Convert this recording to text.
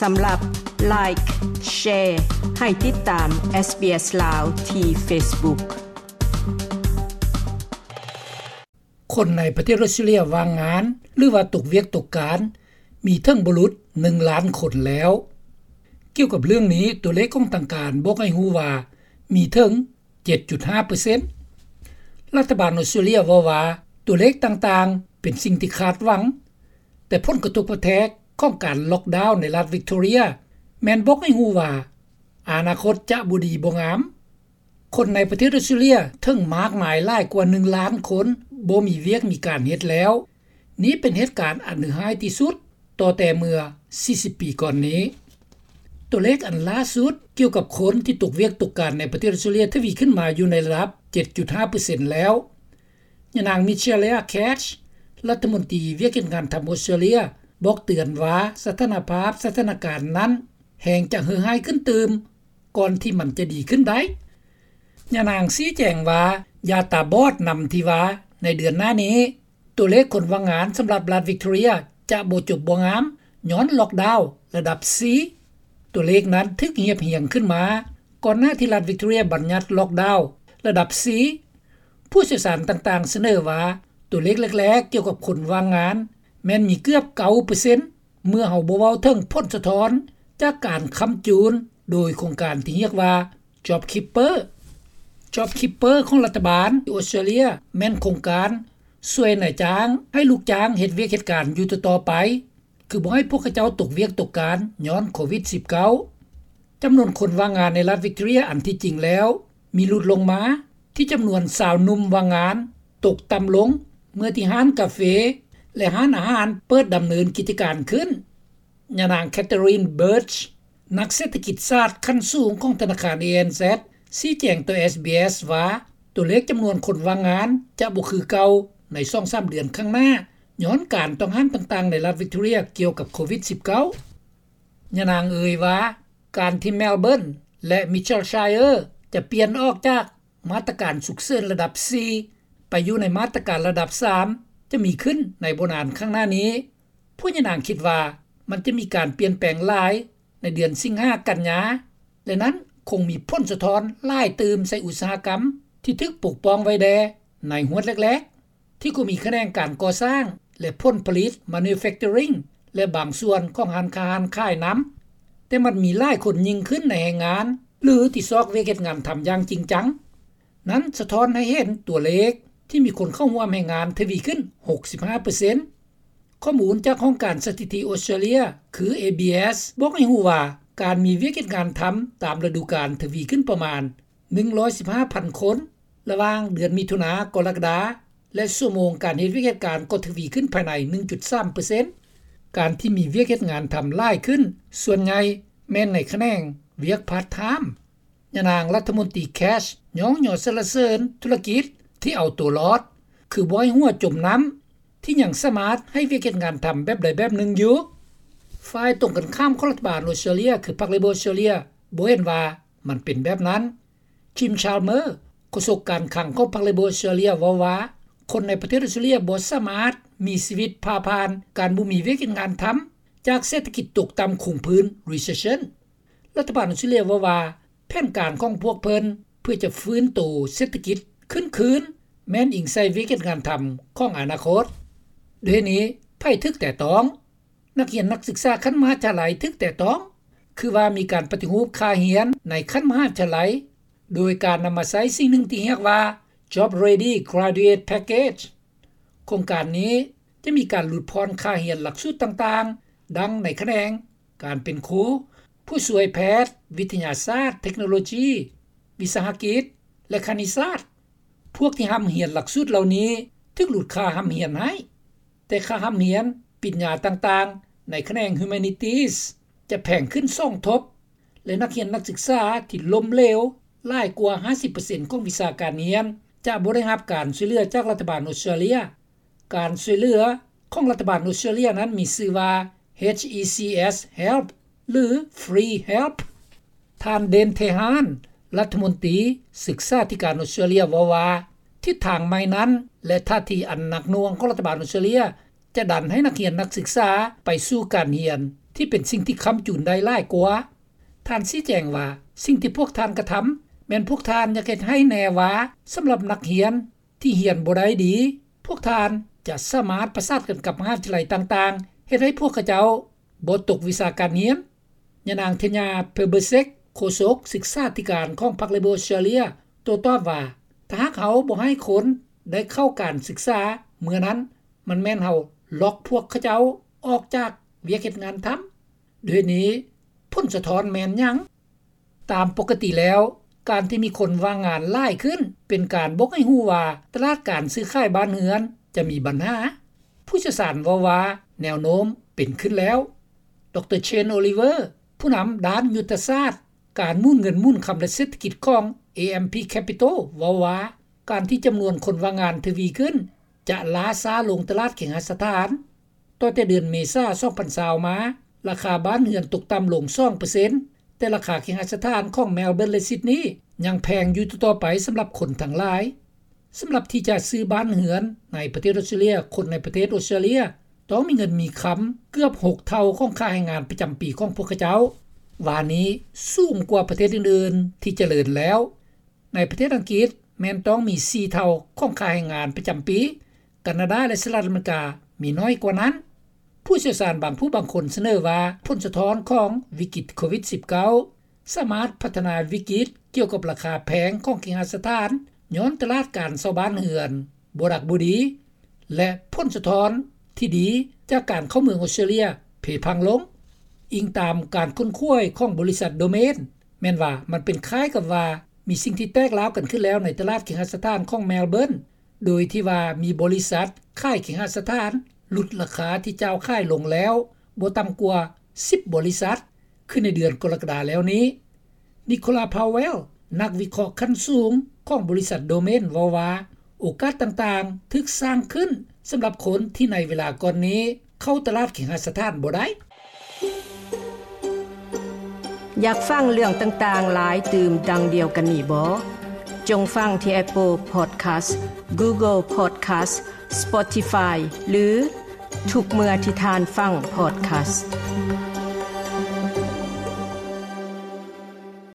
ສຳລັບ Like, Share ໃຫ້ຕິດຕາມ SBS ລາວ ທີ່ Facebook. ຄົນໃນປະເທດອອສເຕຣເລັຽວ່າງງານ ຫຼືວ່າຕົກວຽກຕົກການ ມີເຖິງບໍ່ຫຼຸດ ໜຶ່ງລ້ານຄົນແລ້ວ. ກ່ຽວກັບເລື່ອງນີ້, ຕົວເລກຂອງທາງການບອກໃຫ້ຮູ້ວ່າ ມີເຖິງ ເຈັດຈຸດຫ້າເປີເຊັນ. ລັດຖະບານອອສເຕຣເລັຽເວົ້າວ່າ ຕົວເລກຕ່າງໆ ເປັນສິ່ງທີ່ຄາດຫວັງ, ແຕ່ຜົນກະທົບກະແທກຂອງການລັອກດາວໃນລັດວິກຕໍເຣຍ ແມ່ນບອກໃຫ້ຮູ້ວ່າ ອະນາຄົດຈະບໍ່ດີບໍ່ງາມ. ຄົນໃນປະເທດອອສເຕຣເລັຽເຖິງມາກມາຍຫຼາຍກວ່າ ໜຶ່ງລ້ານຄົນ ບໍ່ມີວຽກມີການເຮັດແລ້ວ. ນີ້ເປັນເຫດການອັນເຫຼືອຮ້າຍທີ່ສຸດ ຕໍ່ແຕ່ເມື່ອ ສີ່ສິບ ປີກ່ອນນີ້. ຕົວເລກອັນລ່າສຸດກ່ຽວກັບຄົນທີ່ຕົກວຽກຕົກການໃນປະເທດອອສເຕຣເລັຽທະວີຂຶ້ນມາຢູ່ໃນລະດັບ ເຈັດຈຸດຫ້າເປີເຊັນແລ້ວ. ຍານາງ Michaelia Cash ລັດຖະມົນຕີວຽກເຮັດງານທຳອອສເຕຣເລັຽ ບອກເຕືອນວ່າ ສະຖານະພາບ ສະຖານະການນັ້ນແຮ່ງຈະເຫື່ອຮ້າຍຂຶ້ນຕື່ມ ກ່ອນທີ່ມັນຈະດີຂຶ້ນໄດ້. ຍານາງຊີ້ແຈງວ່າ ຢ່າຕາບອດນຳທີ່ວ່າ ໃນເດືອນໜ້ານີ້ ຕົວເລກຄົນວ່າງງານສຳລັບລັດວິກຕໍເຣຍຈະບໍ່ຈົບບໍ່ງາມ ຍ້ອນລັອກດາວລະດັບ ສີ່. ຕົວເລກນັ້ນຖືກຮຽບຮຽງຂຶ້ນມາ ກ່ອນໜ້າທີ່ລັດວິກຕໍເຣຍບັນຍັດລັອກດາວລະດັບ ສີ່. ຜູ້ຊ່ຽວຊານຕ່າງໆສະເໜີວ່າ ຕົວເລກແລກໆກ່ຽວກັບຄົນວ່າງງານ ແມ່ນມີເກືອບ ເກົ້າເປີເຊັນ ເມື່ອເຮົາບໍ່ເວົ້າເຖິງຜົນສະທ້ອນຈາກການຄ້ຳຈູນໂດຍໂຄງການທີ່ຮຽກວ່າ JobKeeper. JobKeeper ຂອງລັດຖະບານທີ່ອອສເຕຣເລັຽ ແມ່ນໂຄງການຊ່ວຍນາຍຈ້າງໃຫ້ລູກຈ້າງເຮັດວຽກເຮັດການຢູ່ຕໍ່ໆໄປ ຄືບໍ່ໃຫ້ພວກເຂົາເຈົ້າຕົກວຽກຕົກການຍ້ອນໂຄວິດ ສິບເກົ້າ. ຈຳນວນຄົນວ່າງງານໃນລັດວິກຕໍເຣຍ ອັນທີ່ຈິງແລ້ວມີຫຼຸດລົງມາ ທີ່ຈຳນວນຊາວໜຸ່ມວ່າງງານຕົກຕ່ຳລົງ ເມື່ອທີ່ຮ້ານກາເຟ ແລະ ຮ້ານອາຫານເປີດດຳເນີນກິດຈະການຂຶ້ນ. ຍານາງ Catherine Birch ນັກເສດຖະກິດສາດຂັ້ນສູງຂອງທະນາຄານ ANZ ຊີ້ແຈງຕໍ່ SBS ວ່າ ຕົວເລກຈຳນວນຄົນວ່າງງານຈະບໍ່ຄືເກົ່າໃນສອງສາມເດືອນຂ້າງໜ້າ ຍ້ອນການຕ້ອງຫ້າມຕ່າງໆໃນລັດວິກຕໍເຣຍກ່ຽວກັບໂຄວິດ ສິບເກົ້າ. ຍານາງເອີ່ຍວ່າ ການທີ່ Melbourne ແລະ Mitchellshire ຈະປ່ຽນອອກຈາກມາດຕະການສຸກເສີນລະດັບ ສີ່ ໄປຢູ່ໃນມາດຕະການລະດັບ ສາມ ຈະມີຂຶ້ນໃນບໍ່ນານຂ້າງໜ້ານີ້. ພວກຍານາງຄິດວ່າ ມັນຈະມີການປ່ຽນແປງຫຼາຍໃນເດືອນສິງຫາ ກັນຍາ ແລະ ນັ້ນຄົງມີຜົນສະທ້ອນຫຼາຍຕື່ມໃສ່ອຸດສາຫະກຳທີ່ຖືກປົກປ້ອງໄວ້ແດ່ໃນຫວດແລກໆ ທີ່ກໍມີຂະແໜງການກໍ່ສ້າງ ແລະ ຜົນຜະລິດ manufacturing ແລະ ບາງສ່ວນຂອງຮ້ານຄ້າຮ້ານຂາຍນຳ, ແຕ່ມັນມີຫຼາຍຄົນຍິ່ງຂຶ້ນໃນແຮງງານ ຫຼື ທີ່ຊອກວຽກເຮັດງານທຳຢ່າງຈິງຈັງ. ນັ້ນສະທ້ອນໃຫ້ເຫັນຕົວເລກທີ່ມີຄົນເຂົ້າຮ່ວມແຮງງານທະວີຂຶ້ນ ຫົກສິບຫ້າເປີເຊັນ. ຂໍ້ມູນຈາກຫ້ອງການສະຖິຕິອອສເຕຣເລັຽ ຄື ABS ບອກໃຫ້ຮູ້ວ່າ ການມີວຽກເຮັດງານທຳຕາມລະດູການທະວີຂຶ້ນປະມານ ໜຶ່ງຮ້ອຍສິບຫ້າພັນຄົນ ລະຫວ່າງເດືອນມິຖຸນາ ກໍລະກະດາ ແລະ ຊົ່ວໂມງການເຮັດວຽກເຮັດການກໍທະວີຂຶ້ນພາຍໃນ ໜຶ່ງຈຸດສາມເປີເຊັນ. ການທີ່ມີວຽກເຮັດງານທຳຫຼາຍຂຶ້ນ ສ່ວນໃຫຍ່ແມ່ນໃນຂະແໜງວຽກພາດທາມ. ຍານາງລັດຖະມົນຕີ Cash ຍ້ອງຍໍສັນລະເສີນທຸລະກິດທີ່ເອົາຕົວລອດ ຄືບໍ່ໃຫ້ຫົວຈົມນ້ຳ ທີ່ຍັງສາມາດໃຫ້ວຽກເຮັດງານທຳແບບໃດແບບໜຶ່ງຢູ່. ຝ່າຍຕົງກັນຂ້າມຂອງລັດຖະບານອອສເຕຣເລັຽ ຄືພັກ Labor ອອສເຕຣເລັຽ ບໍ່ເຫັນວ່າມັນເປັນແບບນັ້ນ. Jim Chalmers ໂຄສົກການຄັງຂອງພັກ Labor ອອສເຕຣເລັຽ ເວົ້າວ່າ ຄົນໃນປະເທດອອສເຕຣເລັຽບໍ່ສາມາດມີຊີວິດຜ່າຜ່ານການບໍ່ມີວຽກເຮັດງານທຳ ຈາກເສດຖະກິດຕົກຕ່ຳຄົງພື້ນ Recession. ລັດຖະບານອອສເຕຣເລັຽເວົ້າວ່າ ແຜນການຂອງພວກເພິ່ນເພື່ອຈະຟື້ນໂຕເສດຖະກິດຂຶ້ນຄືນ ແມ່ນອີງໃສ່ວຽກເຮັດງານທຳຂອງອະນາຄົດ. ດ້ວຍນີ້ ໃຜຖືກແຕະຕ້ອງ? ນັກຮຽນນັກສຶກສາຂັ້ນມະຫາວິທະຍາໄລຖືກແຕະຕ້ອງ ຄືວ່າມີການປະຕິຮູບຄ່າຮຽນໃນຂັ້ນມະຫາວິທະຍາໄລ ໂດຍການນຳມາໃຊ້ສິ່ງໜຶ່ງທີ່ຮຽກວ່າ Job Ready Graduate Package. ໂຄງການນີ້ຈະມີການຫຼຸດຜ່ອນຄ່າຮຽນຫຼັກສູດຕ່າງໆ ດັ່ງໃນຂະແໜງການເປັນຄູ, ຜູ້ຊ່ວຍແພດ, ວິທະຍາສາດ, ເທັກໂນໂລຈີ, ວິສາຫະກິດ ແລະ ຄະນິດສາດ. ພວກທີ່ຮ່ຳຮຽນຫຼັກສູດເຫຼົ່ານີ້ຖືກຫຼຸດຄ່າຮ່ຳຮຽນໃຫ້, ແຕ່ຄ່າຮ່ຳຮຽນປິນຍາຕ່າງໆໃນຂະແໜງ Humanities ຈະແພງຂຶ້ນສອງທົບ ແລະ ນັກຮຽນນັກສຶກສາທີ່ລົ້ມເຫຼວຫຼາຍກວ່າຫ້າສິບເປີເຊັນຂອງວິຊາການຮຽນ ຈະບໍ່ໄດ້ຮັບການຊ່ວຍເຫຼືອຈາກລັດຖະບານອອສເຕຣເລັຽ. ການຊ່ວຍເຫຼືອຂອງລັດຖະບານອອສເຕຣເລັຽນັ້ນມີຊື່ວ່າ ເອຊ ອີ ຊີ ເອສ Help ຫຼື Free Help. ທ່ານ Dan Tehan ລັດຖະມົນຕີສຶກສາທິການອອສເຕຣເລັຽເວົ້າວ່າ ທິດທາງໃໝ່ນັ້ນ ແລະ ທ່າທີອັນໜັກໜ່ວງຂອງລັດຖະບານອອສເຕຣເລັຽ ຈະດັນໃຫ້ນັກຮຽນນັກສຶກສາໄປສູ່ການຮຽນ ທີ່ເປັນສິ່ງທີ່ຄ້ຳຈູນໄດ້ຫຼາຍກວ່າ. ທ່ານຊີ້ແຈງວ່າ ສິ່ງທີ່ພວກທ່ານກະທຳ ແມ່ນພວກທ່ານຢາກເຮັດໃຫ້ແນ່ວ່າ ສຳລັບນັກຮຽນທີ່ຮຽນບໍ່ໄດ້ດີ ພວກທ່ານຈະສາມາດປະສານກັນກັບມະຫາວິທະຍາໄລຕ່າງໆ ເຮັດໃຫ້ພວກເຂົາເຈົ້າບໍ່ຕົກວິຊາການຮຽນ. ຍານາງ Tanya Plibersek ໂຄສົກສຶກສາທິການຂອງພັກ Labor Australia ໂຕ້ຕອບວ່າ ຖ້າຫາກເຮົາບໍ່ໃຫ້ຄົນໄດ້ເຂົ້າການສຶກສາ ເມື່ອນັ້ນມັນແມ່ນເຮົາລັອກພວກເຂົາເຈົ້າອອກຈາກວຽກເຮັດງານທຳ. ດ້ວຍນີ້ ຜົນສະທ້ອນແມ່ນຫຍັງ? ຕາມປົກກະຕິແລ້ວ ການທີ່ມີຄົນວ່າງງານຫຼາຍຂຶ້ນ ເປັນການບອກໃຫ້ຮູ້ວ່າ ຕະຫຼາດການຊື້ຂາຍບ້ານເຮືອນຈະມີບັນຫາ. ຜູ້ຊ່ຽວຊານເວົ້າວ່າ ແນວໂນ້ມເປັນຂຶ້ນແລ້ວ. ດຣ Shane Oliver ຜູ້ນຳດ້ານຍຸດທະສາດ ການໝູນເງິນໝູນຄຳ ແລະ ເສດຖະກິດຂອງ AMP Capital ເວົ້າວ່າ ການທີ່ຈຳນວນຄົນວ່າງງານທະວີຂຶ້ນ ຈະລ້າຊ້າລົງຕະຫຼາດເຄຫະສະຖານ. ຕໍ່ແຕ່ເດືອນເມສາ ສອງພັນຊາວ ມາ ລາຄາບ້ານເຮືອນຕົກຕ່ຳລົງສອງເປີເຊັນ ແຕ່ລາຄາເຄຫະສະຖານຂອງ Melbourne ແລະ Sydney ຍັງແພງຢູ່ຕໍ່ໆໄປສຳລັບຄົນທັງຫຼາຍ. ສຳລັບທີ່ຈະຊື້ບ້ານເຮືອນໃນປະເທດອອສເຕຣເລັຽ ຄົນໃນປະເທດອອສເຕຣເລັຽຕ້ອງມີເງິນມີຄຳເກືອບຫົກເທົ່າຂອງຄ່າແຮງງານປະຈຳປີຂອງພວກເຂົາເຈົ້າ, ວ່ານີ້ສູງກວ່າປະເທດອື່ນໆທີ່ຈະເລີນແລ້ວ. ໃນປະເທດອັງກິດແມ່ນຕ້ອງມີສີ່ເທົ່າຂອງຄ່າແຮງງານປະຈຳປີ, ການາດາ ແລະ ສະຫະລັດອາເມລິກາມີໜ້ອຍກວ່ານັ້ນ. ຜູ້ຊ່ຽວຊານບາງຜູ້ບາງຄົນສະເໜີວ່າ ຜົນສະທ້ອນຂອງວິກິດໂຄວິດສິບເກົ້າ ສາມາດພັດທະນາວິກິດກ່ຽວກັບລາຄາແພງຂອງເຄຫະສະຖານ ຍ້ອນຕະຫຼາດການເຊົ່າບ້ານເຮືອນບໍ່ດັກບໍ່ດີ ແລະ ຜົນສະທ້ອນທີ່ດີຈາກການເຂົ້າເມືອງອອສເຕຣເລັຽເພພັງລົງ. ອີງຕາມການຄົ້ນຄວ້າຂອງບໍລິສັດ Domain ແມ່ນວ່າມັນເປັນຄ້າຍກັບວ່າມີສິ່ງທີ່ແຕກລາວກັນຂຶ້ນແລ້ວໃນຕະຫຼາດເຄຫະສະຖານຂອງ Melbourne ໂດຍທີ່ວ່າມີບໍລິສັດຂາຍເຄຫະສະຖານຫຼຸດລາຄາທີ່ເຈົ້າຂາຍລົງແລ້ວບໍ່ຕ່ຳກວ່າສິບບໍລິສັດ ຄືໃນເດືອນກໍລະກະດາແລ້ວນີ້. Nicola Powell ນັກວິເຄາະຂັ້ນສູງຂອງບໍລິສັດ Domain ເວົ້າວ່າ ໂອກາດຕ່າງໆຖືກສ້າງຂຶ້ນສຳລັບຄົນທີ່ໃນເວລາກ່ອນນີ້ເຂົ້າຕະຫຼາດເຄຫະສະຖານບໍ່ໄດ້. ຢາກຟັງເລື່ອງຕ່າງໆຫຼາຍຕື່ມດັ່ງດຽວກັນນີ້ບໍ? ຈົ່ງຟັງທີ່ Apple Podcast, Google Podcast, Spotify ຫຼື ທຸກເມື່ອທີ່ທ່ານຟັງ Podcast.